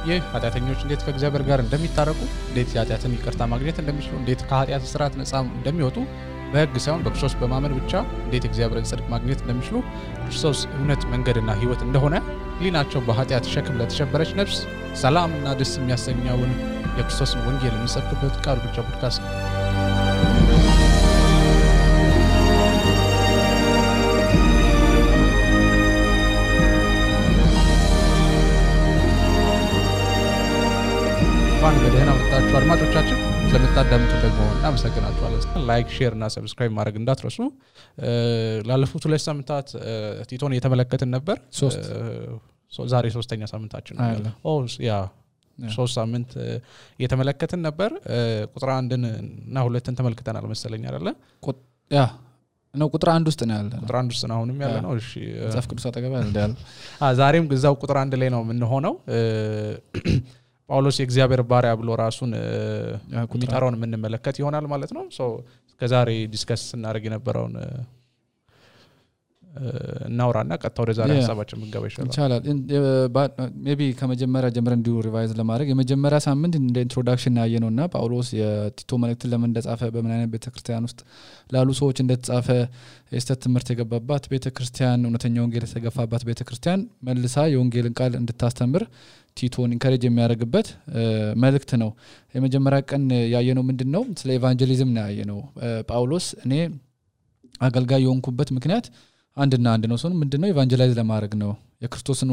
ይህ ኃጢአተኞች እንዴት ከእግዚአብሔር ጋር እንደሚታረቁ እንዴት ኃጢአትን ይቅርታ ማግኘት እንደሚችሉ እንዴት ከኃጢአት ስርዓት ነፃ እንደሚወጡ በሕግ ሳይሆን በክርስቶስ በማመን ብቻ እንዴት እግዚአብሔርን ጽድቅ ማግኘት እንደሚችሉ ክርስቶስ እውነት መንገድና ሕይወት እንደሆነ ሊናቸው በኃጢአት ሸክም ለተሸበረች ነፍስ ሰላምና ደስ የሚያሰኘውን የክርስቶስን ወንጌል የሚሰብክበት ቃል ብቻ ፖድካስት ነው። በደህና መጣችሁ አድማጮቻችን ስለምታዳምጡ ደግሞ እናመሰግናችኋለን። ላይክ ሼር እና ሰብስክራይብ ማድረግ እንዳትረሱ። ላለፉት 2 ሳምንታት ቲቶን እየተመለከትን ነበር። ዛሬ 3ኛ ሳምንታችን ነው። ያ 3 ሳምንት እየተመለከትን ነበር። ቁጥር 1 እና 2ን ተመልክተናል መሰለኝ አይደለ? ያ ነው ቁጥር 1 ውስጥ ነው ያለ። ቁጥር 1 ውስጥ ነው አሁንም ያለ ነው። እሺ መጽሐፍ ቅዱስ አጠገብ ያለ ዛሬም ግዛው ቁጥር 1 ላይ ነው ምን ሆነው ጳውሎስ የእግዚአብሔር ባሪያ ብሎ ራሱን የሚጠራውን የምንመለከት ይሆናል ማለት ነው። ከዛሬ ዲስከስ እናደርግ የነበረውን እናውራና ቀጥታ ወደ ዛሬ ሐሳባችን እንገባ ይችላል። ሜቢ ከመጀመሪያ ጀምረን እንዲሁ ሪቫይዝ ለማድረግ የመጀመሪያ ሳምንት እንደ ኢንትሮዳክሽን ያየነውና ጳውሎስ የቲቶ መልእክትን ለምን እንደጻፈ በምን አይነት ቤተክርስቲያን ውስጥ ላሉ ሰዎች እንደተጻፈ የስተት ትምህርት የገባባት ቤተክርስቲያን እውነተኛ ወንጌል የተገፋባት ቤተክርስቲያን መልሳ የወንጌልን ቃል እንድታስተምር ቲቶን ኢንካሬጅ የሚያደርግበት መልእክት ነው። የመጀመሪያ ቀን ያየነው ምንድነው? ስለ ኢቫንጀሊዝም ነው ያየነው። ጳውሎስ እኔ አገልጋይ የሆንኩበት ምክንያት አንድና አንድ ነው። ምንድነው? ኢቫንጀላይዝ ለማድረግ ነው። የክርስቶስን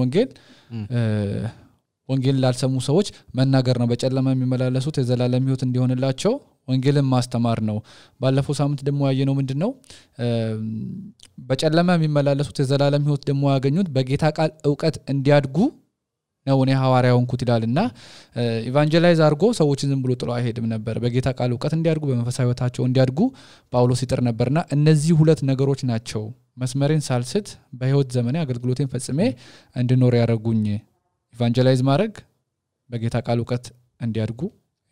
ወንጌል ላልሰሙ ሰዎች መናገር ነው። በጨለማ የሚመላለሱት የዘላለም ሕይወት እንዲሆንላቸው ወንጌልን ማስተማር ነው። ባለፈው ሳምንት ደግሞ ያየነው ምንድነው? በጨለማ የሚመላለሱት የዘላለም ሕይወት ደግሞ ያገኙት በጌታ ቃል ዕውቀት እንዲያድጉ ነው እኔ ሐዋርያው እንኩት ይላልና ኢቫንጀላይዝ አድርጎ ሰዎችን ዝም ብሎ ጥሎ አይሄድም ነበር። በጌታ ቃል ዕውቀት እንዲያድጉ በመንፈሳዊ ሕይወታቸው እንዲያድጉ ጳውሎስ ይጥር ነበርና እነዚህ 2 ነገሮች ናቸው መስመሬን ሳልስት በሕይወት ዘመኔ አገልግሎቴን ፈጽሜ እንድኖር ያደረጉኝ። ኢቫንጀላይዝ ማድረግ በጌታ ቃል ዕውቀት እንዲያድጉ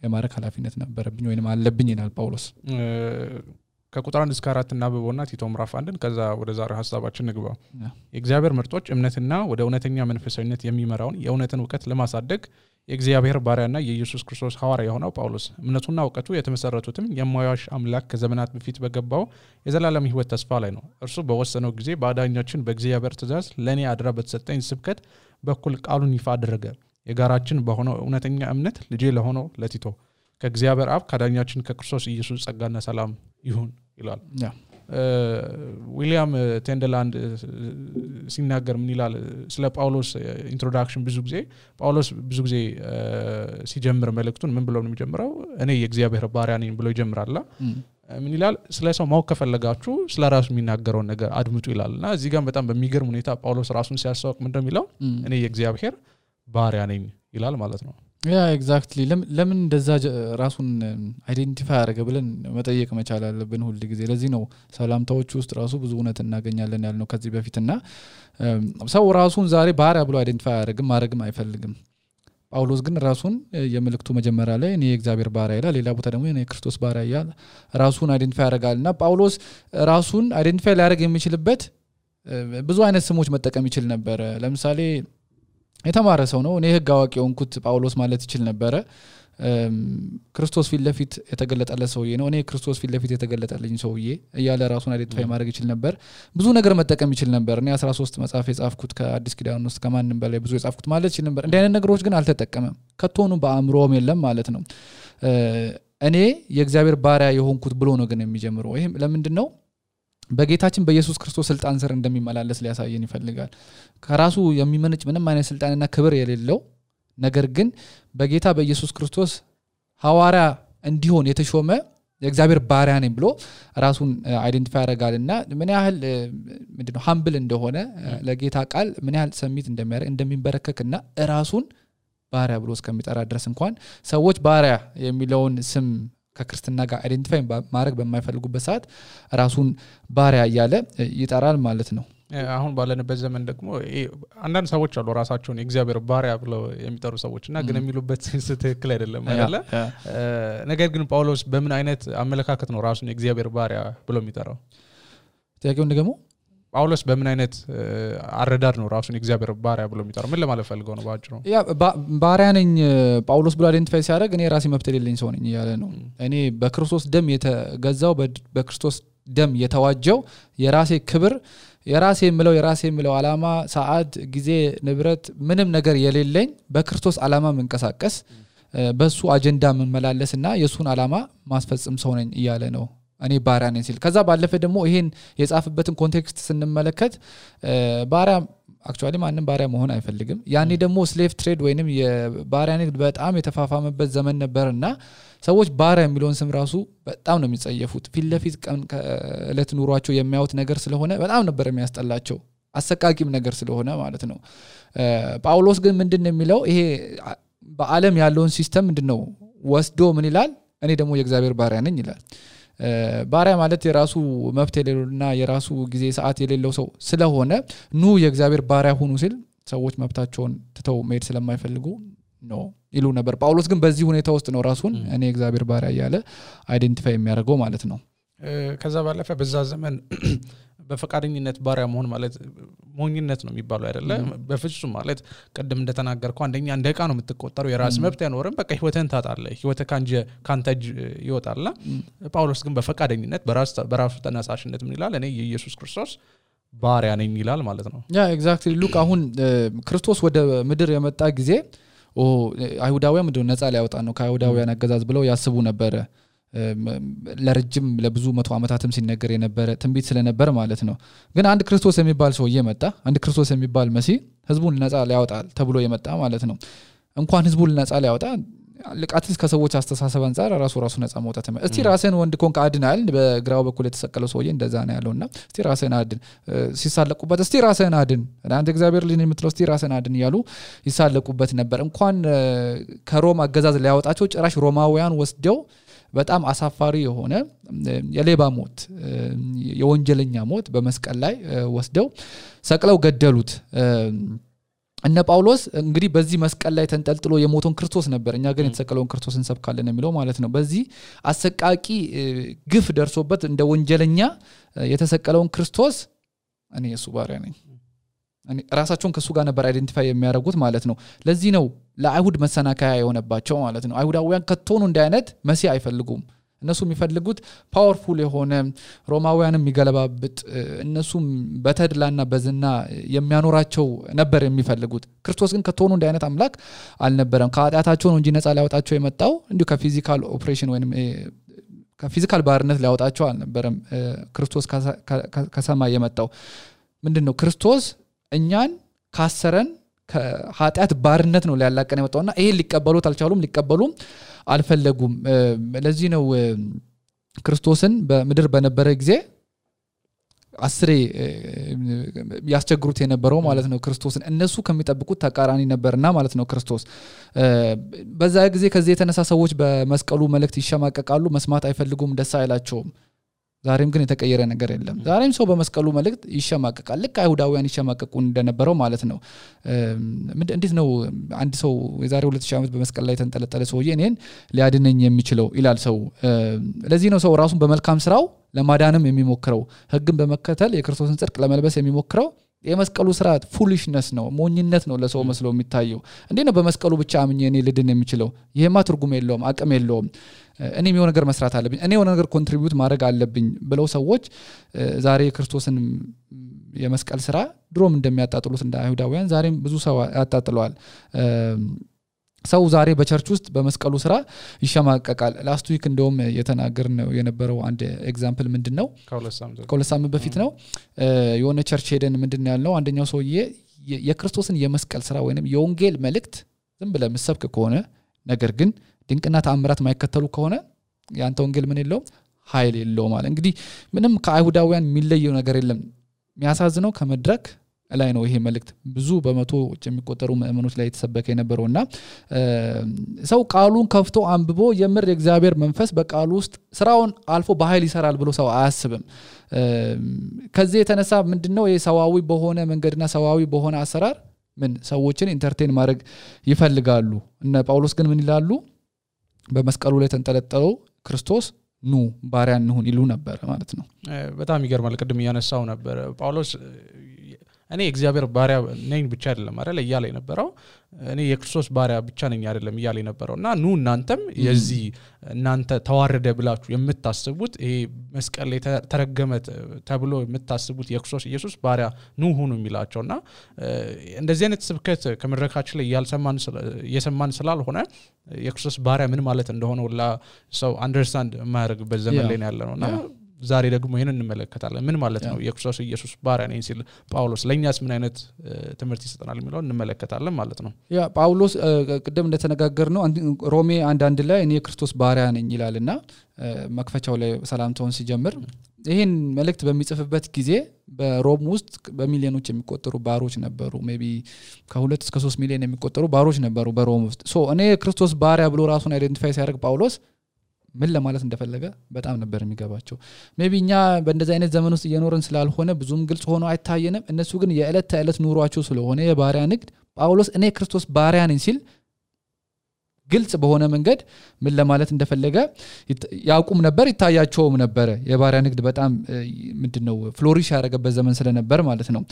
የማድረግ ኃላፊነት ነበረብኝ ወይንም አለብኝ ይላል ጳውሎስ። ከቁጥር 1 እስከ 4 እናብበውና ቲቶ ምዕራፍ 1 ከዛ ወደ ዛሬ ሐሳባችን ንግባ። የእግዚአብሔር ምርጦች እምነትና ወደ እውነተኛ መንፈሳዊነት የሚመራውን የእውነትን ዕውቀት ለማሳደግ የእግዚአብሔር ባሪያና የኢየሱስ ክርስቶስ ሐዋርያ የሆነው ጳውሎስ እምነቱና ዕውቀቱ የተመሰረቱትም የማያዋሽ አምላክ ከዘመናት በፊት በገባው የዘላለም ሕይወት ተስፋ ላይ ነው። እርሱ በወሰነው ጊዜ በአዳኛችን በእግዚአብሔር ትእዛዝ ለኔ አድራ በተሰጠኝ ስብከት በኩል ቃሉን ይፋ አደረገ። የጋራችን በሆነው እውነተኛ እምነት ልጄ ለሆነው ለቲቶ ከእግዚአብሔር አብ ከአዳኛችን ከክርስቶስ ኢየሱስ ጸጋና ሰላም ይሁን ይላል። ዊሊያም ቴንደላንድ ሲናገር ምን ይላል ስለ ጳውሎስ ኢንትሮዳክሽን? ጳውሎስ ብዙ ጊዜ ሲጀምር መልእክቱን ምን ብሎ ነው የሚጀምረው? እኔ የእግዚአብሔር ባሪያ ነኝ ብሎ ይጀምራል። ምን ይላል? ስለ ሰው ማወቅ ከፈለጋችሁ ስለ ራሱ የሚናገረውን ነገር አድምጡ ይላልና እዚህ ጋር በጣም በሚገርም ሁኔታ ጳውሎስ ራሱን ሲያስተዋውቅ ምንድነው የሚለው? እኔ የእግዚአብሔር ባሪያ ነኝ ይላል ማለት ነው። ያ ኤግዛክትሊ ለምን እንደዛ ራሱን አይዴንቲፋይ ያደረገ ብለን መጠየቅ መቻል አለብን ሁሉ ጊዜ። ለዚህ ነው ሰላምታዎች ውስጥ ራሱ ብዙ እውነት እናገኛለን ያልነው ከዚህ በፊትና ሰው ራሱን ዛሬ ባሪያ ብሎ አይዴንቲፋይ ያደርግም ማድረግም አይፈልግም። ጳውሎስ ግን ራሱን የመልእክቱ መጀመሪያ ላይ እኔ የእግዚአብሔር ባሪያ ይላል፣ ሌላ ቦታ ደግሞ እኔ የክርስቶስ ባሪያ ይላል። ራሱን አይዴንቲፋይ ያደርጋልና ጳውሎስ ራሱን አይዴንቲፋይ ሊያደርግ የሚችልበት ብዙ አይነት ስሞች መጠቀም ይችል ነበር። ለምሳሌ የተማረ ሰው ነው። እኔ ሕግ አዋቂ ሆንኩት ጳውሎስ ማለት ይችል ነበር። ክርስቶስ ፊት ለፊት የተገለጠለት ሰውዬ ነው። እኔ ክርስቶስ ፊት ለፊት የተገለጠልኝ ሰውዬ እያለ ራሱን አይዴንቲፋይ ማድረግ ይችል ነበር። ብዙ ነገር መጠቀም ይችል ነበር። እኔ 13 መጽሐፍ የጻፍኩት ከአዲስ ኪዳን ውስጥ ከማንም በላይ ብዙ የጻፍኩት ማለት ይችል ነበር። እንዲህ አይነት ነገሮች ግን አልተጠቀመም። ከቶኑ በአእምሮም የለም ማለት ነው። እኔ የእግዚአብሔር ባሪያ የሆንኩት ብሎ ነው ግን የሚጀምረው። ይሄም ለምንድን ነው? በጌታችን በኢየሱስ ክርስቶስ ስልጣን ስር እንደሚመላለስ ሊያሳየን ይፈልጋል። ከራሱ የሚመነጭ ምንም አይነት ስልጣንና ክብር የሌለው ነገር ግን በጌታ በኢየሱስ ክርስቶስ ሐዋርያ እንዲሆን የተሾመ የእግዚአብሔር ባሪያ ነኝ ብሎ ራሱን አይዴንቲፋይ ያደርጋልና ምን ያህል ምንድነው ሃምብል እንደሆነ ለጌታ ቃል ምን ያህል ሰሚት እንደሚያደርግ እንደሚንበረከክና ራሱን ባሪያ ብሎ እስከሚጠራ ድረስ እንኳን ሰዎች ባሪያ የሚለውን ስም ከክርስትና ጋር አይዴንቲፋይ ማድረግ በማይፈልጉበት ሰዓት ራሱን ባሪያ እያለ ይጠራል ማለት ነው። አሁን ባለንበት ዘመን ደግሞ አንዳንድ ሰዎች አሉ ራሳቸውን የእግዚአብሔር ባሪያ ብለው የሚጠሩ ሰዎችና ግን የሚሉበት ትክክል አይደለም አይደለ? ነገር ግን ጳውሎስ በምን አይነት አመለካከት ነው ራሱን የእግዚአብሔር ባሪያ ብሎ የሚጠራው? ጥያቄው ደግሞ ጳውሎስ በምን አይነት አረዳድ ነው ራሱን እግዚአብሔር ባሪያ ብሎ የሚጠራው? ምን ለማለት ፈልገው ነው ባጭሩ? ያ ባሪያ ነኝ ጳውሎስ ብሎ አይደንቲፋይ ሲያደርግ እኔ ራሴ መብት የሌለኝ ሰው ነኝ ያለ ነው። እኔ በክርስቶስ ደም የተገዛው በክርስቶስ ደም የተዋጀው የራሴ ክብር የራሴ የምለው ዓላማ ሰዓት ጊዜ ንብረት ምንም ነገር የሌለኝ በክርስቶስ ዓላማ መንቀሳቀስ በሱ አጀንዳ መመላለስና የሱን ዓላማ ማስፈጸም ሰው ነኝ ይያለ ነው እኔ ባሪያ ነኝ ሲል። ከዛ ባለፈ ደግሞ ይሄን የጻፈበትን ኮንቴክስት ስንመለከት ባሪያ አክቹአሊ ማንንም ባሪያ መሆን አይፈልግም። ያኔ ደግሞ ስሌቭ ትሬድ ወይንም የባሪያ ንግድ በጣም የተፋፋመበት ዘመን ነበርና ሰዎች ባሪያ የሚለውን ስም ራሱ በጣም ነው የሚጸየፉት። ፊትለፊት እለት ኑሯቸው የሚያዩት ነገር ስለሆነ በጣም ነበር የሚያስጠላቸው አሰቃቂም ነገር ስለሆነ ማለት ነው። ጳውሎስ ግን ምንድነው የሚለው ይሄ በዓለም ያለውን ሲስተም ምንድነው ወስዶ ምን ይላል? እኔ ደግሞ የእግዚአብሔር ባሪያ ነኝ ይላል። ባሪያ ማለት የራሱ መብት የሌለውና የራሱ ጊዜ ሰዓት የሌለው ሰው ስለሆነ ኑ የእግዚአብሔር ባሪያ ሁኑ ሲል ሰዎች መብታቸውን ትተው መሄድ ስለማይፈልጉ ነው ይሉ ነበር። ጳውሎስ ግን በዚህ ሁኔታ ውስጥ ነው ራሱን እኔ የእግዚአብሔር ባሪያ ያለ አይደንቲፋይ የሚያደርገው ማለት ነው። ከዛ ባለፈ በዛ ዘመን በፈቃደኝነት ባሪያ መሆን ማለት ሞኝነት ነው የሚባለው አይደለ? በፍጹም ማለት ቀደም እንደተናገርኩ አንደኛ እንደ ዕቃ ነው የምትቆጠረው። የራስ መብት ያኖርም በቃ ህይወትን ታጣለህ፣ ህይወት ካንተ ይወጣልና ጳውሎስ ግን በፈቃደኝነት በራሱ ተነሳሽነት ምን ይላል? እኔ የኢየሱስ ክርስቶስ ባሪያ ነኝ ይላል ማለት ነው። ያ ኤግዛክትሊ ሉክ አሁን ክርስቶስ ወደ ምድር የመጣ ጊዜ አይሁዳውያን ምንድነው ነፃ ሊያወጣ ነው ከአይሁዳውያን አገዛዝ ብለው ያስቡ ነበር። ለረጅም ለብዙ 100 ዓመታትም ሲነገር የነበረ ትንቢት ስለነበር ማለት ነው። ግን አንድ ክርስቶስ የሚባል ሰው እየመጣ አንድ ክርስቶስ የሚባል መሲህ ህዝቡን ነፃ ሊያወጣል ተብሎ የመጣ ማለት ነው። እንኳን ህዝቡን ነፃ ሊያወጣ ለቃትስ ከሰዎች አስተሳሰብ አንፃር ራሱ ነፃ መውጣት ነው። እስቲ ራስን ወንድ ኮንክ አድናል በግራው በኩል የተሰቀለው ሰውዬ እንደዛ ነው ያለውና እስቲ ራስን አድን ሲሳለቁበት እስቲ ራስን አድን አንተ እግዚአብሔር ልጅ የምትለው እስቲ ራስን አድን ያሉ ይሳለቁበት ነበር። እንኳን ከሮም አገዛዝ ሊያወጣቸው ጭራሽ ሮማውያን ወስደው በጣም አሳፋሪ የሆነ የሌባ ሞት የወንጀለኛ ሞት በመስቀል ላይ ወስደው ሰቅለው ገደሉት። እነ ጳውሎስ እንግዲህ በዚህ መስቀል ላይ ተንጠልጥሎ የሞተውን ክርስቶስ ነበር እኛ ግን የተሰቀለውን ክርስቶስን እንሰብካለን የሚለው ማለት ነው። በዚህ አሰቃቂ ግፍ ደርሶበት እንደ ወንጀለኛ የተሰቀለውን ክርስቶስ እኔ የሱ ባሪያ ነኝ እኔ ራሳቸውን ከሱ ጋር ነበር አይደንቲፋይ የሚያደርጉት ማለት ነው። ለዚህ ነው ለአይሁድ መሰናከያ የሆነባቸው ማለት ነው። አይሁዳውያን ከቶኑ እንደ አይነት መሲህ አይፈልጉም። እነሱ የሚፈልጉት ፓወርፉል የሆነ ሮማውያንም የሚገለባብጥ እነሱም በተድላና በዝና የሚያኖራቸው ነበር የሚፈልጉት። ክርስቶስ ግን ከቶኑ እንደ አይነት አምላክ አልነበረም። ከኃጢአታቸው ነው እንጂ ነፃ ሊያወጣቸው የመጣው እንዲሁ ከፊዚካል ኦፕሬሽን ወይንም ከፊዚካል ባርነት ሊያወጣቸው አልነበረም። ክርስቶስ ከሰማይ የመጣው ምንድነው? ክርስቶስ እኛን ካሰረን ከኃጢአት ባርነት ነው ሊያላቀን የመጣውና ይሄን ሊቀበሉት አልቻሉም፣ ሊቀበሉም አልፈለጉም። ለዚህ ነው ክርስቶስን በምድር በነበረ ጊዜ አስሬ ያስቸግሩት የነበረው ማለት ነው። ክርስቶስን እነሱ ከሚጠብቁት ተቃራኒ ነበርና ማለት ነው። ክርስቶስ በዛ ጊዜ ከዚህ የተነሳ ሰዎች በመስቀሉ መልእክት ይሸማቀቃሉ፣ መስማት አይፈልጉም፣ ደስ አይላቸውም። ዛሬም ግን የተቀየረ ነገር የለም። ዛሬም ሰው በመስቀሉ መልእክት ይሸማቀቃል፣ ልክ አይሁዳውያን ይሸማቀቁ እንደነበረው ማለት ነው። እንዴት ነው አንድ ሰው የዛሬ 2000 ዓመት በመስቀል ላይ ተንጠለጠለ ሰውዬ እኔን ሊያድነኝ የሚችለው ይላል ሰው። ለዚህ ነው ሰው ራሱን በመልካም ስራው ለማዳንም የሚሞክረው፣ ህግን በመከተል የክርስቶስን ጽድቅ ለመልበስ የሚሞክረው። የመስቀሉ ስርዓት ፉሊሽነስ ነው፣ ሞኝነት ነው ለሰው መስሎ የሚታየው። እንዴት ነው በመስቀሉ ብቻ አምኜ እኔ ልድን የሚችለው? ይሄማ ትርጉም የለውም፣ አቅም የለውም። እኔ የሆነ ነገር መስራት አለብኝ፣ እኔ የሆነ ነገር ኮንትሪቢዩት ማድረግ አለብኝ ብለው ሰዎች ዛሬ የክርስቶስን የመስቀል ስራ ድሮም እንደሚያጣጥሉት እንደ አይሁዳውያን ዛሬም ብዙ ሰው ያጣጥለዋል። ሰው ዛሬ በቸርች ውስጥ በመስቀሉ ስራ ይሸማቀቃል። ላስት ዊክ እንደውም የተናገርነው የነበረው አንድ ኤግዛምፕል ምንድነው? ከሁለት ሳምንት በፊት ነው የሆነ ቸርች ሄደን ምንድነው ያልነው? አንደኛው ሰውዬ የክርስቶስን የመስቀል ስራ ወይንም የወንጌል መልእክት ዝም ብለህ መስበክ ከሆነ ነገር ግን ድንቅና ተአምራት ማይከተሉ ከሆነ ያንተ ወንጌል ምን የለውም? ኃይል የለውም ማለት። እንግዲህ ምንም ከአይሁዳውያን የሚለየው ነገር የለም። የሚያሳዝነው ከመድረክ ላይ ነው ይሄ መልእክት ብዙ በመቶዎች የሚቆጠሩ ምእመኖች ላይ የተሰበከ የነበረውና ሰው ቃሉን ከፍቶ አንብቦ የምር የእግዚአብሔር መንፈስ በቃሉ ውስጥ ስራውን አልፎ በኃይል ይሰራል ብሎ ሰው አያስብም። ከዚህ የተነሳ ምንድነው የሰዋዊ በሆነ መንገድና ሰዋዊ በሆነ አሰራር ምን ሰዎችን ኢንተርቴን ማድረግ ይፈልጋሉ። እነ ጳውሎስ ግን ምን ይላሉ? በመስቀሉ ላይ ተንጠለጠለው ክርስቶስ ኑ ባሪያ እንሁን ይሉ ነበር ማለት ነው በጣም ይገርማል ቅድም ያነሳው ነበር ጳውሎስ እኔ እግዚአብሔር ባሪያ ነኝ ብቻ አይደለም አይደል እያለ የነበረው እኔ የክርስቶስ ባሪያ ብቻ ነኝ አይደለም እያለ የነበረውና ኑ እናንተም የዚህ እናንተ ተዋረደ ብላችሁ የምታስቡት ይሄ መስቀል ላይ ተረገመ ተብሎ የምታስቡት የክርስቶስ ኢየሱስ ባሪያ ኑ ሁኑ የሚላቸውና እንደዚህ አይነት ስብከት ከመድረካችን ላይ እየሰማን ስላልሆነ የክርስቶስ ባሪያ ምን ማለት እንደሆነ ሁላ ሰው አንደርስታንድ የማያደርግበት ዘመን ላይ ያለነውና ዛሬ ደግሞ ይሄን እንመለከታለን ምን ማለት ነው የክርስቶስ ኢየሱስ ባሪያ ነኝ ሲል ጳውሎስ ለኛስ ምን አይነት ትምህርት ይሰጠናል የሚለው እንመለከታለን ማለት ነው ያ ጳውሎስ ቀደም እንደተነጋገርነው ሮሜ 1:1 ላይ እኔ የክርስቶስ ባሪያ ነኝ ይላልና መክፈቻው ላይ ሰላምታውን ሲጀምር ይሄን መልእክት በሚጽፍበት ጊዜ በሮም ውስጥ በሚሊዮኖች የሚቆጠሩ ባሮች ነበሩ ሜቢ ከ2 እስከ 3 ሚሊዮን የሚቆጠሩ ባሮች ነበሩ በሮም ውስጥ ሶ እኔ የክርስቶስ ባሪያ ብሎ ራሱን አይደንቲፋይ ሲያደርግ ጳውሎስ ምን ለማለት እንደፈለገ በጣም ነበር የሚገባቸው ሜቢ እኛ በእንደዚህ አይነት ዘመን ውስጥ እየኖርን ስላልሆነ ብዙም ግልጽ ሆኖ አይታየንም እነሱ ግን የዕለት ተዕለት ኑሯቸው ስለሆነ የባሪያ ንግድ ጳውሎስ እኔ ክርስቶስ ባሪያ ነኝ ሲል ግልጽ በሆነ መንገድ ምን ለማለት እንደፈለገ ያውቁም ነበር ይታያቸውም ነበር የባሪያ ንግድ በጣም ምንድነው ፍሎሪሽ ያደረገበት ዘመን ስለነበር ማለት ነው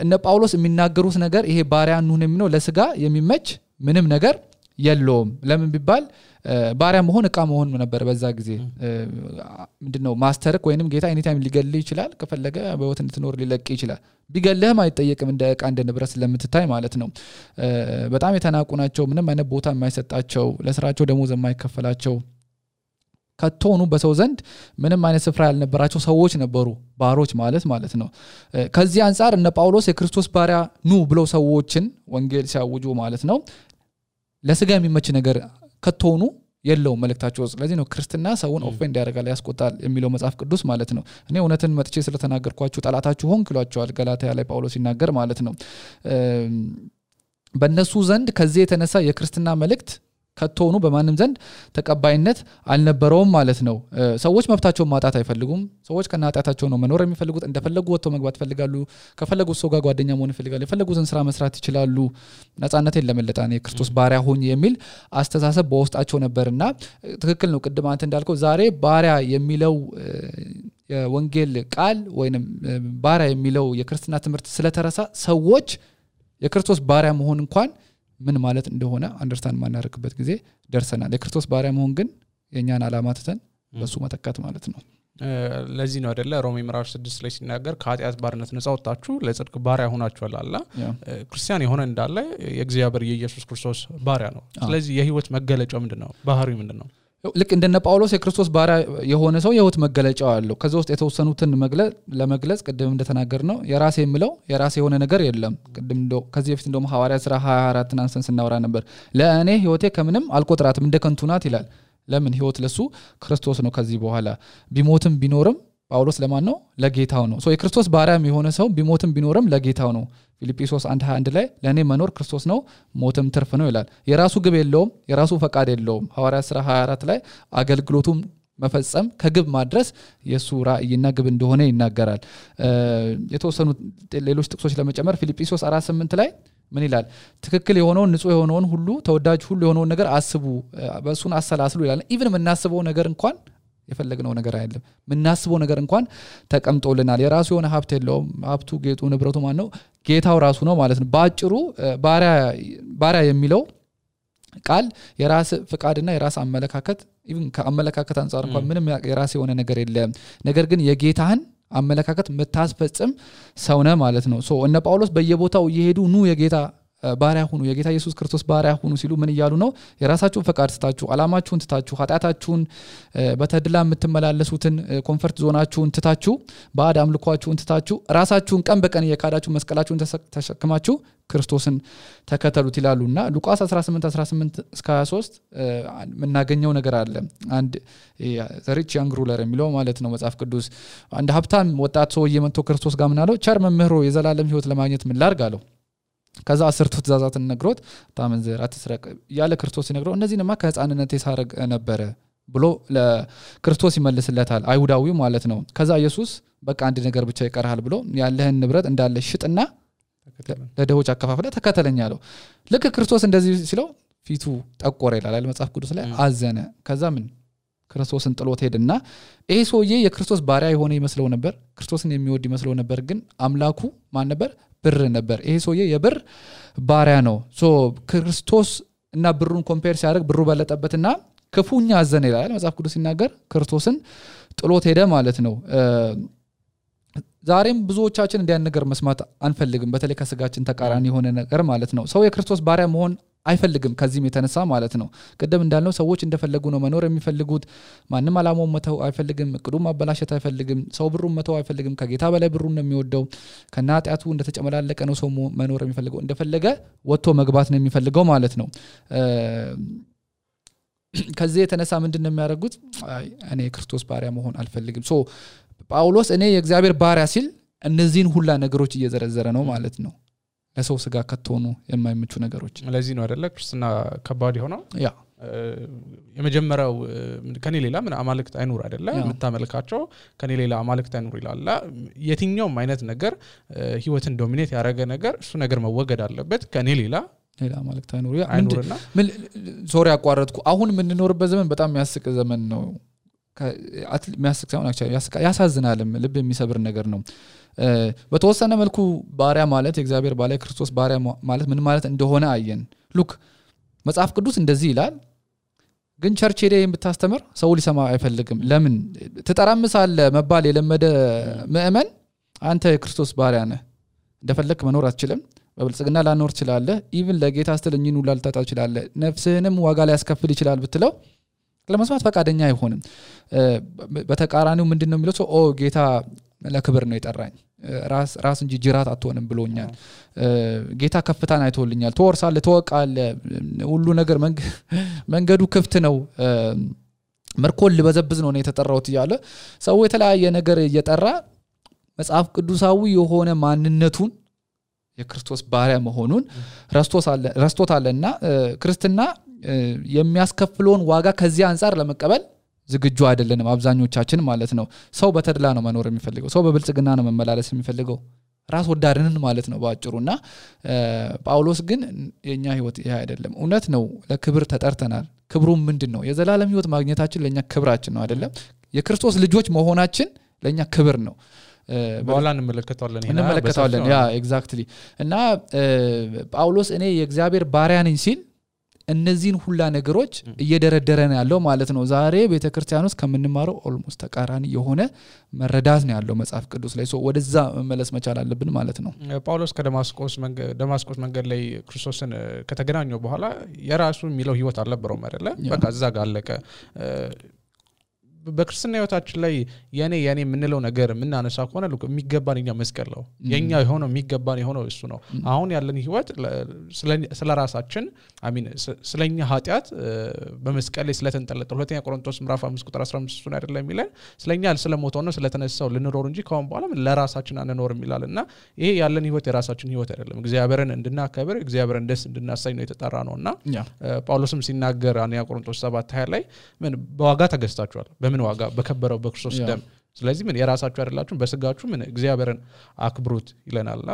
እነ ጳውሎስ የሚናገሩት ነገር ይሄ ባሪያ እንሁን የሚለው ለስጋ የሚመች ምንም ነገር የለውም ለምን ቢባል ባሪያ መሆን እቃ መሆን ነበር በዛ ጊዜ ምንድነው ማስተርክ ወይንም ጌታ ኤኒ ታይም ሊገልህ ይችላል ከፈለገ በህይወት እንድትኖር ሊለቅ ይችላል ቢገልህም አይጠየቅም እንደ እቃ እንደ ንብረት ስለምትታይ ማለት ነው በጣም የተናቁ ናቸው ምንም አይነት ቦታ የማይሰጣቸው ለስራቸው ደሞዝ የማይከፈላቸው ከቶኑ በሰው ዘንድ ምንም አይነት ስፍራ ያልነበራቸው ሰዎች ነበሩ ባሮች ማለት ነው ከዚህ አንፃር እነ ጳውሎስ የክርስቶስ ባሪያ ኑ ብለው ሰዎችን ወንጌል ሲያውጁ ማለት ነው ለስጋ የሚመች ነገር ከቶኑ የለው መልእክታቸው ስለዚህ ነው ክርስትና ሰውን ኦፌንድ ያደርጋል ያስቆጣል የሚለው መጽሐፍ ቅዱስ ማለት ነው እኔ እውነትን መጥቼ ስለተናገርኳችሁ ጣላታችሁ ሆንክ ይሏቸዋል ገላትያ ላይ ጳውሎስ ይናገር ማለት ነው በእነሱ ዘንድ ከዚህ የተነሳ የክርስትና መልእክት ከቶኑ በማንም ዘንድ ተቀባይነት አልነበረውም ማለት ነው ሰዎች መብታቸውን ማጣት አይፈልጉም ሰዎች ከናጣታቸው ነው መኖር የሚፈልጉት እንደፈለጉ ወጥተው መግባት ፈልጋሉ ከፈለጉት ሰው ጋር ጓደኛ መሆን ይፈልጋሉ የፈለጉትን ስራ መስራት ይችላሉ ነፃነትን ለመለጣን የክርስቶስ ባሪያ ሆኝ የሚል አስተሳሰብ በውስጣቸው ነበርና ትክክል ነው ቅድም አንተ እንዳልከው ዛሬ ባሪያ የሚለው የወንጌል ቃል ወይንም ባሪያ የሚለው የክርስትና ትምህርት ስለተረሳ ሰዎች የክርስቶስ ባሪያ መሆን እንኳን ምን ማለት እንደሆነ አንደርስታንድ ማናረክበት ጊዜ ደርሰናል የክርስቶስ ባሪያ መሆን ግን የኛን ዓላማ ተተን በሱ መተካት ማለት ነው ለዚህ ነው አይደለ ሮሜ ምዕራፍ 6 ላይ ሲናገር ከኃጢአት ባርነት ነፃ ወጣችሁ ለጽድቅ ባሪያ ሆናችኋል አላ ክርስቲያን የሆነ እንዳለ የእግዚአብሔር የኢየሱስ ክርስቶስ ባሪያ ነው ስለዚህ የህይወት መገለጫው ምንድነው ባህሪው ምንድነው ልክ እንደነ ጳውሎስ የክርስቶስ ባሪያ የሆነ ሰው የህይወት መገለጫው አለው ከዛ ውስጥ የተወሰኑትን ለመግለጽ ቅድም እንደተናገርነው የራሴ የምለው የራሴ የሆነ ነገር የለም ቅድም ከዚህ በፊት እንደውም ሐዋርያት ሥራ 24 አንስተን ስናወራ ነበር ለእኔ ህይወቴ ከምንም አልቆጥራትም እንደ ከንቱ ናት ይላል ለምን ህይወት ለሱ ክርስቶስ ነው ከዚህ በኋላ ቢሞትም ቢኖርም ጳውሎስ ለማን ነው ለጌታው ነው ሶ የክርስቶስ ባሪያም የሆነ ሰው ቢሞትም ቢኖርም ለጌታው ነው ፊልጵስዩስ 1:21 ላይ ለኔ መኖር ክርስቶስ ነው ሞትም ትርፍ ነው ይላል የራሱ ግብ የለውም የራሱ ፈቃድ የለውም ሐዋርያት ሥራ 24 ላይ አገልግሎቱም መፈጸም ከግብ ማድረስ የሱ ራእይና ግብ እንደሆነ ይናገራል የተወሰኑ ሌሎች ጥቅሶች ለመጨመር ፊልጵስዩስ 4:8 ላይ ምን ይላል ትክክል የሆነውን ንጹህ የሆነውን ሁሉ ተወዳጅ ሁሉ የሆነውን ነገር አስቡ በሱን አሰላስሉ ይላል ኢቭን የምናስበው ነገር እንኳን የፈለግነው ነገር አይደለም ምናስበው ነገር እንኳን ተቀምጦልናል የራሱ የሆነ ሀብት የለውም ሀብቱ ጌጡ ንብረቱ ማን ነው ጌታው ራሱ ነው ማለት ነው ባጭሩ ባሪያ የሚለው ቃል የራስ ፍቃድና የራስ አመለካከት ኢቭን ከአመለካከት አንፃር እንኳን ምንም የራስ የሆነ ነገር የለም ነገር ግን የጌታህን አመለካከት መታስፈጽም ሰው ነህ ማለት ነው ሶ እነ ጳውሎስ በየቦታው እየሄዱ ኑ የጌታ ባሪያ ሁኑ የጌታ ኢየሱስ ክርስቶስ ባሪያ ሁኑ ሲሉ ምን ይያሉ ነው የራሳችሁን ፈቃድ ትታችሁ አላማችሁን ትታችሁ ኃጢአታችሁን በተድላ የምትመላለሱትን ኮምፎርት ዞናችሁን ትታችሁ ባዕድ አምልኳችሁን ትታችሁ ራሳችሁን ቀን በቀን የካዳችሁ መስቀላችሁን ተሸክማችሁ ክርስቶስን ተከተሉት ይላሉና ሉቃስ 18:18 እስከ 23 ምናገኘው ነገር አለ አንድ ዘሪች ያንግ ሩለር የሚለው ማለት ነው መጽሐፍ ቅዱስ አንድ ሀብታም ወጣት ሰው እየመጥቶ ክርስቶስ ጋር ምን አለው ቸር መምህሮ የዘላለም ህይወት ለማግኘት ምን ላድርግ አለው ከዛ 10 ትእዛዛትን ነግሮት ታመንዘር አትስረቅ ያለ ክርስቶስ ይነግረው እነዚህንማ ከህፃንነቴ ሳረግ ነበረ ብሎ ለክርስቶስ ይመልስለታል አይሁዳዊው ማለት ነው ከዛ ኢየሱስ በቃ አንድ ነገር ብቻ ይቀርሃል ብሎ ያለህን ንብረት እንዳለ ሽጥና ለደሆች አከፋፍለ ተከተለኝ አለው ልክ ክርስቶስ እንደዚህ ሲለው ፊቱ ጠቆረ ይላል መጽሐፍ ቅዱስ ላይ አዘነ ከዛ ምን ክርስቶስን ጥሎት ሄደና ይሄ ሰውዬ የክርስቶስ ባሪያ የሆነ ይመስለው ነበር ክርስቶስን የሚወድ ይመስለው ነበር ግን አምላኩ ማን ነበር ብር ነበር ይሄ ሰውዬ የብር ባሪያ ነው ሶ ክርስቶስ እና ብሩን ኮምፔር ሲያደርግ ብሩ በለጠበትና ክፉኛ አዘነ ይላል መጽሐፍ ቅዱስ ሲናገር ክርስቶስን ጥሎት ሄደ ማለት ነው ዛሬም ብዙዎቻችን እንዲያን ነገር መስማት አንፈልግም በተለይ ከስጋችን ተቃራኒ የሆነ ነገር ማለት ነው ሰው የክርስቶስ ባሪያ መሆን አይፈልግም ከዚህም የተነሳ ማለት ነው ቀደም እንዳልነው ሰዎች እንደፈለጉ ነው መኖር የሚፈልጉት ማንንም አላማው መተው አይፈልግም እቅዱም ማበላሸት አይፈልግም ሰው ብሩን መተው አይፈልግም ከጌታ በላይ ብሩን ነው የሚወደው ከናጣቱ እንደተጨመላለቀ ነው ሰው መኖር የሚፈልገው እንደፈለገ ወጥቶ መግባት ነው የሚፈልገው ማለት ነው ከዚህ የተነሳ ምንድነው የሚያደርጉት እኔ የክርስቶስ ባሪያ መሆን አልፈልግም ሶ ጳውሎስ እኔ የእግዚአብሔር ባሪያ ሲል እነዚህን ሁላ ነገሮች እየዘረዘረ ነው ማለት ነው ለሰው ስጋ ከተሆኑ የማይመቹ ነገሮች ለዚህ ነው አይደለ ክርስትና ከባድ የሆነው ያ የመጀመሪያው ከኔ ሌላ ምን አማልክት አይኑር አይደለ የምታመልካቸው ከኔ ሌላ አማልክት አይኑር ይላል የትኛውም አይነት ነገር ህይወትን ዶሚኔት ያደረገ ነገር እሱ ነገር መወገድ አለበት ከኔ ሌላ አማልክት አይኑር አይኑርና ሶሪ አቋረጥኩ አሁን ምን እንኖርበት ዘመን በጣም የሚያስቅ ዘመን ነው የሚያስቅ ሳይሆን ያሳዝናልም ልብ የሚሰብር ነገር ነው በተወሰነ መልኩ ባሪያ ማለት የእግዚአብሔር ባሪያ ክርስቶስ ባሪያ ማለት ምን ማለት እንደሆነ አየን ሉክ መጽሐፍ ቅዱስ እንደዚህ ይላል ግን ቸርች ሄደ የምታስተምር ሰው ሊሰማ አይፈልግም ለምን ተጠራምሳለ መባል የለመደ ምእመን አንተ የክርስቶስ ባሪያ ነህ እንደፈለክ መኖር አትችልም በብልጽግና ላኖር ይችላል ኢቭን ለጌታ አስተልኝኑ ላልታጣ ይችላል ነፍስህንም ዋጋ ላይ ያስከፍል ይችላል ብትለው ለመስማት ፈቃደኛ አይሆንም በተቃራኒው ምንድነው የሚለው ሰው ጌታ ለክብር ነው የጠራኝ ራስ እንጂ ጅራት አትሆንም ብሎኛል ጌታ ከፍታን አይቶልኛል ተወርሳለህ ተወቃለህ ሁሉ ነገር መንገዱ ክፍት ነው መርኮል በዘብዝ ነው የተጠራውት ይያለ ሰው የተለያየ ነገር እየጠራ መጽሐፍ ቅዱሳዊ የሆነ ማንነቱን የክርስቶስ ባሪያ መሆኑን ረስቶታልና ክርስትና የሚያስከፍለውን ዋጋ ከዚህ አንፃር ለመቀበል ዝግጁ አይደለንም አብዛኞቻችን ማለት ነው ሰው በተድላ ነው መኖር የሚፈልገው ሰው በብልጽግና ነው መመላለስ የሚፈልገው ራስ ወዳድነን ማለት ነው ባጭሩና ጳውሎስ ግን የኛ ህይወት ይሄ አይደለም እውነት ነው ለክብር ተጠርተናል ክብሩ ምንድነው የዘላለም ህይወት ማግኘታችን ለኛ ክብራችን ነው አይደለም የክርስቶስ ልጆች መሆናችን ለኛ ክብር ነው በኋላ እንመለከታለን ያ ኤግዛክትሊ እና ጳውሎስ እኔ የእግዚአብሔር ባሪያ ነኝ ሲል እነዚህን ሁላ ነገሮች እየደረደረን ያለው ማለት ነው ዛሬ ቤተክርስቲያን ውስጥ ከምንማረው ኦልሞስት ተቃራኒ የሆነ መረዳት ነው ያለው መጽሐፍ ቅዱስ ላይ ወደዛ መመለስ መቻል አለብን ማለት ነው ጳውሎስ ከደማስቆስ መንገድ ላይ ክርስቶስን ከተገናኘው በኋላ የራሱ የሚለው ህይወት አልነበረውም አይደለ በቃ እዛ ጋር አለቀ በክርስትና ህይወታችን ላይ የኔ የምንለው ነገር ምናነሳ ከሆነ የሚገባንኛ መስቀል ነው የኛ የሆነው የሚገባን የሆነው እሱ ነው አሁን ያለን ህይወት ስለራሳችን አሚን ስለኛ ኃጢያት በመስቀል ላይ ስለተንጠለጠለ ሁለተኛ ቆሮንቶስ ምዕራፍ 5 ቁጥር 15 እሱን አይደለም የሚለን ስለኛ ስለሞተው ነው ስለተነሳው ልንኖር እንጂ ካሁን በኋላ ለራሳችን አንኖርም ይላልና ይሄ ያለን ህይወት የራሳችን ህይወት አይደለም እግዚአብሔርን እንድናከብር እግዚአብሔርን ደስ እንድናሳይ ነው የተጠራ ነውና ጳውሎስም ሲናገር አንያ ቆሮንቶስ 7:20 ላይ ምን በዋጋ ተገዝታችኋል በምን ዋጋ በከበረው በክርስቶስ ደም ስለዚህ ምን የራሳችሁ አይደላችሁ በስጋችሁ ምን እግዚአብሔርን አክብሩት ይለናልና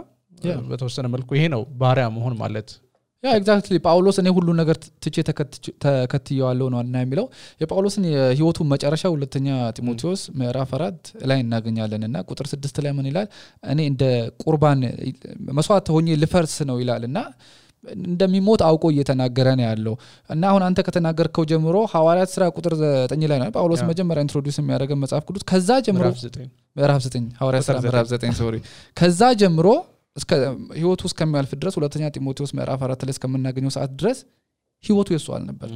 በተወሰነ መልኩ ይሄ ነው ባሪያ መሆን ማለት ያ ኤግዛክትሊ ጳውሎስ እኔ ሁሉ ነገር ትቼ ተከትየዋለሁ ነው እና የሚለው የጳውሎስን የህይወቱ መጨረሻ ሁለተኛ ጢሞቴዎስ ምዕራፍ 4 ላይ እናገኛለንና ቁጥር 6 ላይ ምን ይላል እኔ እንደ ቁርባን መስዋዕት ሆኜ ልፈርስ ነው ይላልና እንደሚሞት አውቆ እየተናገረ ነው ያለው እና አሁን አንተ ከተናገርከው ጀምሮ ሐዋርያት ሥራ ቁጥር 9 ላይ ነው ጳውሎስ መጀመሪያ ኢንትሮዲዩስ የሚያደርገው መጽሐፍ ቅዱስ ከዛ ጀምሮ ምዕራፍ 9 ሐዋርያት ሥራ ምዕራፍ 9 ሶሪ ከዛ ጀምሮ እስከ ህይወቱ እስከሚያልፍ ድረስ ሁለተኛ ጢሞቴዎስ ምዕራፍ 4 ላይ እስከምናገኘው ሰዓት ድረስ ህይወቱ የሱ አልነበር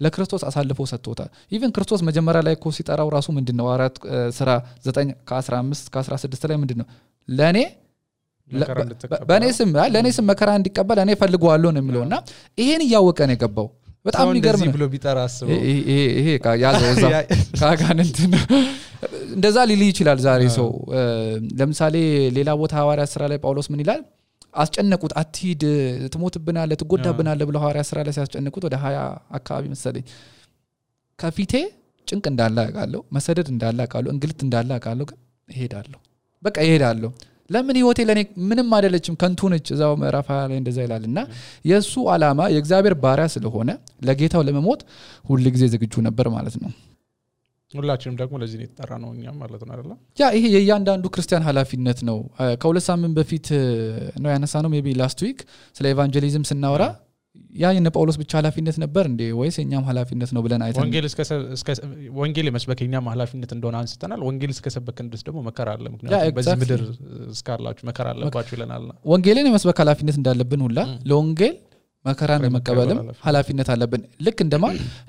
ለክርስቶስ አሳልፎ ሰጥቶታል ኢቭን ክርስቶስ መጀመሪያ ላይ እኮ ሲጠራው ራሱ ምንድነው ሐዋርያት ሥራ 9 ከ15 ከ16 ላይ ምንድነው ለኔ በኔ ስም መከራ እንዲቀበል እኔ ፈልጓለሁ ነው የሚለውና ይሄን ያወቀ ነው የገባው በጣም የሚገርም ነው ብሎ ቢጠራ አስበው ይሄ ያዘው እዛ ካጋንንት እንደዛ ሊል ይችላል ዛሬ ሰው ለምሳሌ ሌላ ቦታ ሐዋርያት ሥራ ላይ ጳውሎስ ምን ይላል አስጨነቁት አትሂድ ትሞትብናለህ ትጎዳብናለህ ብለው ሐዋርያት ሥራ ላይ ሲያስጨንቁት ወደ 20 አካባቢ መሰለኝ ከፊቴ ጭንቅ እንዳለ አውቃለሁ መሰደድ እንዳለ አውቃለሁ እንግልት እንዳለ አውቃለሁ ግን እሄዳለሁ በቃ እሄዳለሁ ለምን ህይወቴ ለኔ ምንም አይደለችም ከንቱ ነች እዛው ምዕራፍ 20 ላይ እንደዛ ይላልና የሱ ዓላማ የእግዚአብሔር ባሪያ ስለሆነ ለጌታው ለመሞት ሁሉ ጊዜ ዝግጁ ነበር ማለት ነው ሁላችንም ደግሞ ለዚህ ነው የተጠራ ነው እኛም ማለት ነው አይደል ያ ይሄ የእያንዳንዱ ክርስቲያን ኃላፊነት ነው ከሁለት ሳምንት በፊት ነው ያነሳነው ሜቢ ላስት ዊክ ስለ ኢቫንጀሊዝም ስናወራ ያ የነ ጳውሎስ ብቻ ኃላፊነት ነበር እንዴ ወይስ የኛም ኃላፊነት ነው ብለን አይተን ወንጌል መስበከኛም ኃላፊነት እንደሆነ አንስተናል ወንጌል እስከሰበከን ድረስ ደግሞ መከራ አለ ምክንያቱም በዚህ ምድር እስካላችሁ መከራ አለባችሁ ይለናል ወንጌልን የመስበክ ኃላፊነት እንዳለብን ሁላ ለወንጌል መከራን መቀበልም ኃላፊነት አለብን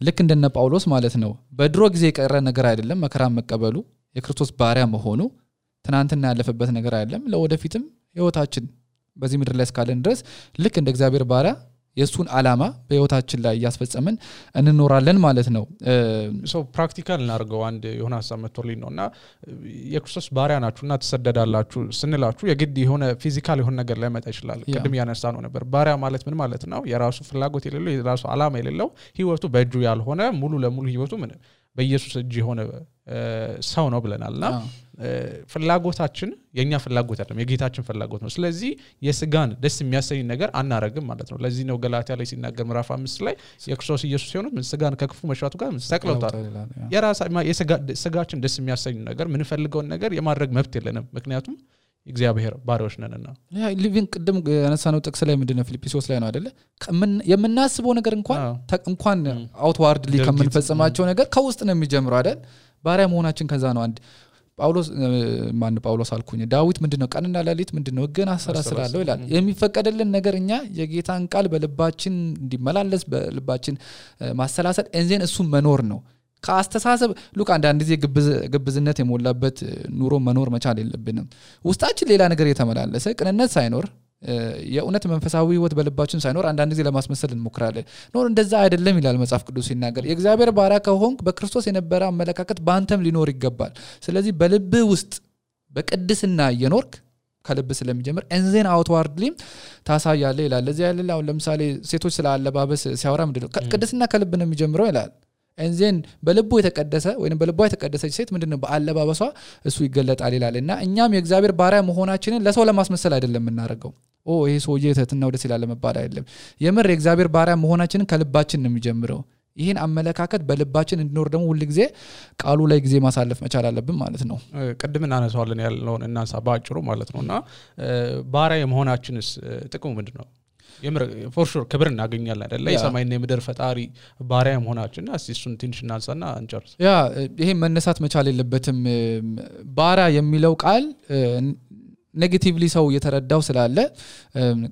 ልክ እንደነ ጳውሎስ ማለት ነው በድሮ ጊዜ የቀረ ነገር አይደለም መከራን መቀበሉ የክርስቶስ ባሪያ መሆኑ ትናንትና ያለፈበት ነገር አይደለም ለወደፊትም ህይወታችን በዚህ ምድር ላይ እስካለን ድረስ ልክ እንደ እግዚአብሔር ባሪያ የሱን ዓላማ በህይወታችን ላይ ያስፈጸመን እንኖራለን ማለት ነው ሶ ፕራክቲካል እናርገው አንድ የሆነ ሐሳብ መጥቶልኝ ነውና የክርስቶስ ባሪያ ናችሁና ተሰደዳላችሁ ስንላችሁ የግድ የሆነ ፊዚካል የሆነ ነገር ላይ መጣ ይችላል ቅድም ያነሳነው ነበር ባሪያ ማለት ምን ማለት ነው የራሱ ፍላጎት የሌለው የራሱ ዓላማ የሌለው ህይወቱ በእጁ ያልሆነ ሙሉ ለሙሉ ህይወቱ ምን በኢየሱስ እጅ የሆነ ሰው ነው ብለናልና ፍላጎታችን የኛ ፍላጎት አይደለም የጌታችን ፍላጎት ነው ስለዚህ የስጋን ደስ የሚያሰኝ ነገር አናረግም ማለት ነው ለዚህ ነው ገላትያ ላይ ሲናገር ምዕራፍ 5 ላይ የክርስቶስ ኢየሱስ ሲሆኑ ምን ስጋን ከክፉ መሻቱ ጋር ሰቅለውታል የስጋችን ደስ የሚያሰኝ ነገር ምን ፈልገውን ነገር የማድረግ መብት የለንም ምክንያቱም እግዚአብሔር ባሪያዎች ነንና ያ ሊቪንግ ቅድም ያነሳነው ጥቅስ ላይ ምንድነው ፊልጵስዩስ ላይ ነው አይደለ የምናስበው ነገር እንኳን አውትዋርድሊ ከመንፈጸማቸው ነገር ከውስጥ ነው የሚጀምረው አይደል ባሪያ መሆናችን ከዛ ነው አንድ ጳውሎስ አልኩኝ ዳዊት ምንድነው ቀንና ሌሊት ምንድነው ግን አሰራስራለሁ ይላል የሚፈቀደልን ነገርኛ የጌታን ቃል በልባችን እንዲመላለስ በልባችን ማሰላሰል እንዘን እሱ መኖር ነው ካስተሳሰብ ሉክ አንዳንድ ጊዜ ግብዝነት የሞላበት ኑሮ መኖር መቻል የለብንም ውስጣችን ሌላ ነገር የተመላለሰ ቅንነት ሳይኖር የእውነት መንፈሳዊ ህይወት በልባችን ሳይኖር አንዳንድ ጊዜ ለማስመሰል እንሞክራለን ኖር እንደዛ አይደለም ይላል መጽሐፍ ቅዱስ ሲናገር የእግዚአብሔር ባሪያ ከሆንክ በክርስቶስ የነበረ አመለካከት በአንተም ሊኖር ይገባል ስለዚህ በልብ ውስጥ በቅድስና እየኖርክ ከልብ ስለሚጀምር እንዘን አውትዋርድሊ ታሳያለ ይላል ለዚህ ያለ አሁን ለምሳሌ ሴቶች ስለ አለባበስ ሲያወራ ምንድነው ቅድስና ከልብ ነው የሚጀምረው ይላል እንዘን በልቡ የተቀደሰ ወይንም በልቧ የተቀደሰች ሴት ምንድነው በአለባበሷ እሱ ይገለጣል ይላልና እኛም የእግዚአብሔር ባሪያ መሆናችንን ለሰው ለማስመሰል አይደለም እናረጋው ይሄ ሰውዬ ተትና ወደ ሲላለ መባል አይደለም የምር የእግዚአብሔር ባሪያ መሆናችንን ከልባችን ነው የሚጀምረው ይሄን አመለካከት በልባችን እንዲኖር ደግሞ ሁሉ ጊዜ ቃሉ ላይ ጊዜ ማሳለፍ መቻል አለብን ማለት ነው ቅድም እናነሳዋለን ያልነው እናንሳ ባጭሩ ማለት ነውና ባሪያ የመሆናችንስ ጥቅሙ ምንድነው for sure ክብር እናገኛለን አይደለ የሰማይና የምድር ፈጣሪ ባሪያ መሆናችን እሱን ትንሽ እናንሳና እንጨርስ ያ ይሄ መነሳት መቻል የለበትም ባሪያ የሚለው ቃል ኔጌቲቭሊ ሰው የተረዳው ስላለ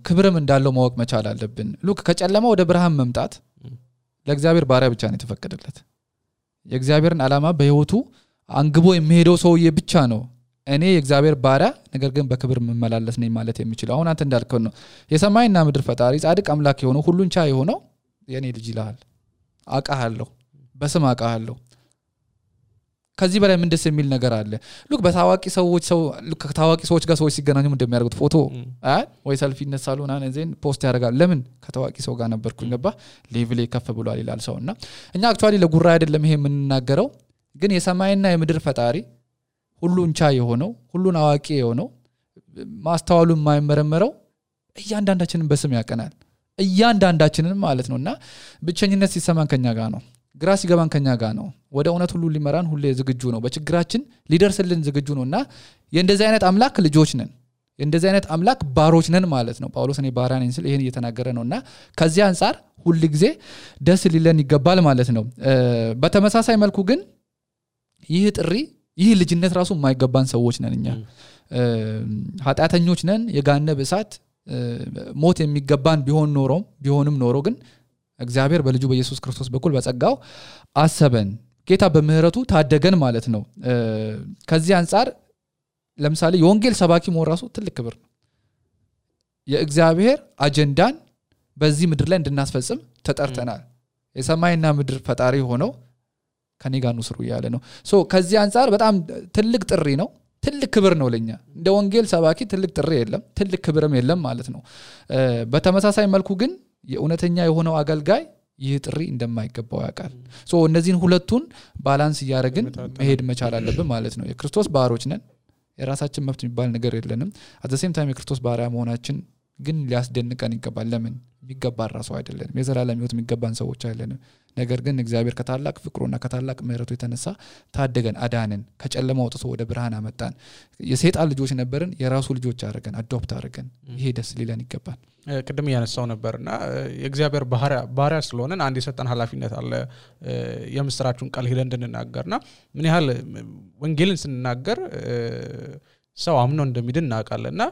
ክብርም እንዳለው ማወቅ መቻል አለብን ሉክ ከጨለማ ወደ ብርሃን መምጣት ለእግዚአብሔር ባሪያ ብቻ ነው የተፈቀደለት የእግዚአብሔርን ዓላማ በህይወቱ አንግቦ የሚሄደው ሰውዬ ብቻ ነው እኔ የእግዚአብሔር ባሪያ ነገር ግን በክብር መመላለስ ነኝ ማለት የሚችለው አሁን አንተ እንዳልከው ነው የሰማይና ምድር ፈጣሪ ጻድቅ አምላክ የሆነው ሁሉን ቻይ የሆነው የኔ ልጅ ይላል አቃሃለሁ በስም አቃሃለሁ ከዚህ በላይ ምን ደስ የሚል ነገር አለ ሉክ በታዋቂ ሰዎች ጋር ሰዎች ሲገናኙ እንደሚያደርጉት ፎቶ ወይ ሰልፊ እነሳሉና ነዘን ፖስት ያደርጋል ለምን ከታዋቂ ሰው ጋር ነበርኩኝ ገባ ሌቭል ከፍ ብሏል ይላል ሰውና እኛ አክቹአሊ ለጉራ አይደለም ይሄ የምንናገረው ግን የሰማይና የምድር ፈጣሪ ሁሉን ቻይ የሆነው ሁሉን አዋቂ የሆነው ማስተዋሉ የማይመረመረው እያንዳንዳችንን በስም ያቀናል እያንዳንዳችንን ማለት ነውና ብቸኝነት ሲሰማን ከኛ ጋር ነው ግራ ሲገባን ከኛ ጋር ነው ወደ እውነት ሁሉ ሊመራን ሁሌ ዝግጁ ነው በችግራችን ሊደርስልን ዝግጁ ነውና የእንደዚህ አይነት አምላክ ልጆች ነን የእንደዚህ አይነት አምላክ ባሮች ነን ማለት ነው ጳውሎስ እኔ ባሪያ ነኝ ሲል ይሄን እየተናገረ ነውና ከዚህ አንፃር ሁሉ ጊዜ ደስ ሊለን ይገባል ማለት ነው በተመሳሳይ መልኩ ግን ይህ ልጅነት ራሱ የማይገባን ሰዎች ነን እኛ ኃጢአተኞች ነን የጋነብ እሳት ሞት የሚገባን ቢሆንም ኖሮ ግን እግዚአብሔር በልጁ በኢየሱስ ክርስቶስ በኩል በጸጋው አሰበን ጌታ በምህረቱ ታደገን ማለት ነው ከዚህ አንፃር ለምሳሌ የወንጌል ሰባኪ መሆን ራሱ ትልቅ ክብር ነው የእግዚአብሔር አጀንዳን በዚህ ምድር ላይ እንድናስፈጽም ተጠርተናል የሰማይና ምድር ፈጣሪ ሆነው ከኔ ጋር ነው ስሩ ያለ ነው ሶ ከዚህ አንፃር በጣም ትልቅ ጥሪ ነው ትልቅ ክብር ነው ለኛ እንደ ወንጌል ሰባኪ ትልቅ ጥሪ የለም ትልቅ ክብርም የለም ማለት ነው በተመሳሳይ መልኩ ግን የእውነተኛ የሆነው አገልጋይ ይህ ጥሪ እንደማይገባው ያውቃል ሶ እነዚህን ሁለቱን ባላንስ ያደርግን መሄድ መቻል አለብን ማለት ነው የክርስቶስ ባሮች ነን የራሳችን መብት የሚባል ነገር የለንም at the same time የክርስቶስ ባሪያ መሆናችን ግን ሊያስደንቀን ይገባል ለምን የሚገባ ራሱ አይደለንም የዘላለም ህይወት የሚገባን ሰዎች አይደለንም ነገር ግን እግዚአብሔር ከታላቅ ፍቅሩና ከታላቅ ምህረቱ የተነሳ ታደገን አዳነን ከጨለማ አውጥቶ ወደ ብርሃን አመጣን የሰይጣን ልጆች ነበርን የራሱ ልጆች አደረገን አዶፕት አደረገን ይሄ ደስ ሊለን ይገባል ቅድም ያነሳው ነበርና የእግዚአብሔር ባሪያ ስለሆነን አንድ የሰጠን ኃላፊነት አለ የምስራቹን ቃል ሄደን እንድንናገርና ምን ያህል ወንጌልን ስንናገር ሰው አምኖ እንደሚድን እናውቃለንና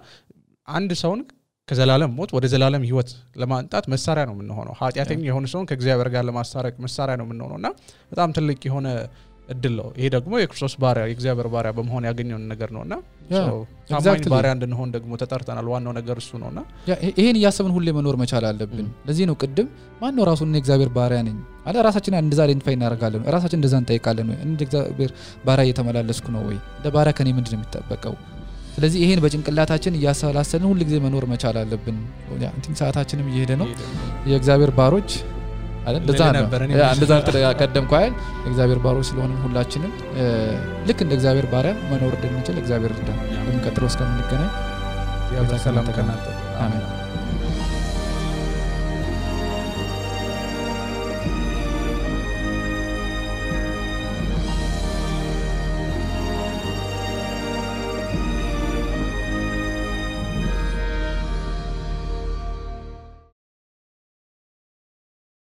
አንድ ሰውን ከዘላለም ሞት ወደ ዘላለም ህይወት ለማንጣት መሳሪያ ነው የምንሆነው ኃጢያተኛ የሆነ ሰውን ከእግዚአብሔር ጋር ለማስታረቅ መሳሪያ ነው የምንሆነውና በጣም ትልቅ የሆነ እድል ነው ይሄ ደግሞ የክርስቶስ ባሪያ የእግዚአብሔር ባሪያ በመሆን ያገኘው ነገር ነውና ታማኝ ባሪያ እንድንሆን ደግሞ ተጠርተናል ዋናው ነገር እሱ ነውና ይሄን ያሰብን ሁሌ መኖር መቻል አለብን ለዚህ ነው ቅድም ማን ነው ራሱን የእግዚአብሔር ባሪያ ነኝ አለ ራሳችን እንደዛ አይደንቲፋይ እናደርጋለን ራሳችን እንደዛ እንጠይቃለን እንደ እግዚአብሔር ባሪያ እየተመላለስኩ ነው ወይ እንደ ባሪያ ከኔ ምንድነው የሚጠበቀው ስለዚህ ይሄን በጭንቅላታችን ያሳላሰልን ሁሉ ጊዜ መኖር መቻል አለብን እንትን ሰዓታችንም እየሄደ ነው የእግዚአብሔር ባሮች አይደል እንደዛ ተቀደምኩ አይደል የእግዚአብሔር ባሮች ስለሆነ ሁላችንም ልክ እንደ እግዚአብሔር ባሪያ መኖር እንድንችል እግዚአብሔር ይርዳን በሚቀጥለው እስከምንገናኝ ያው ሰላም ከናንተ አሜን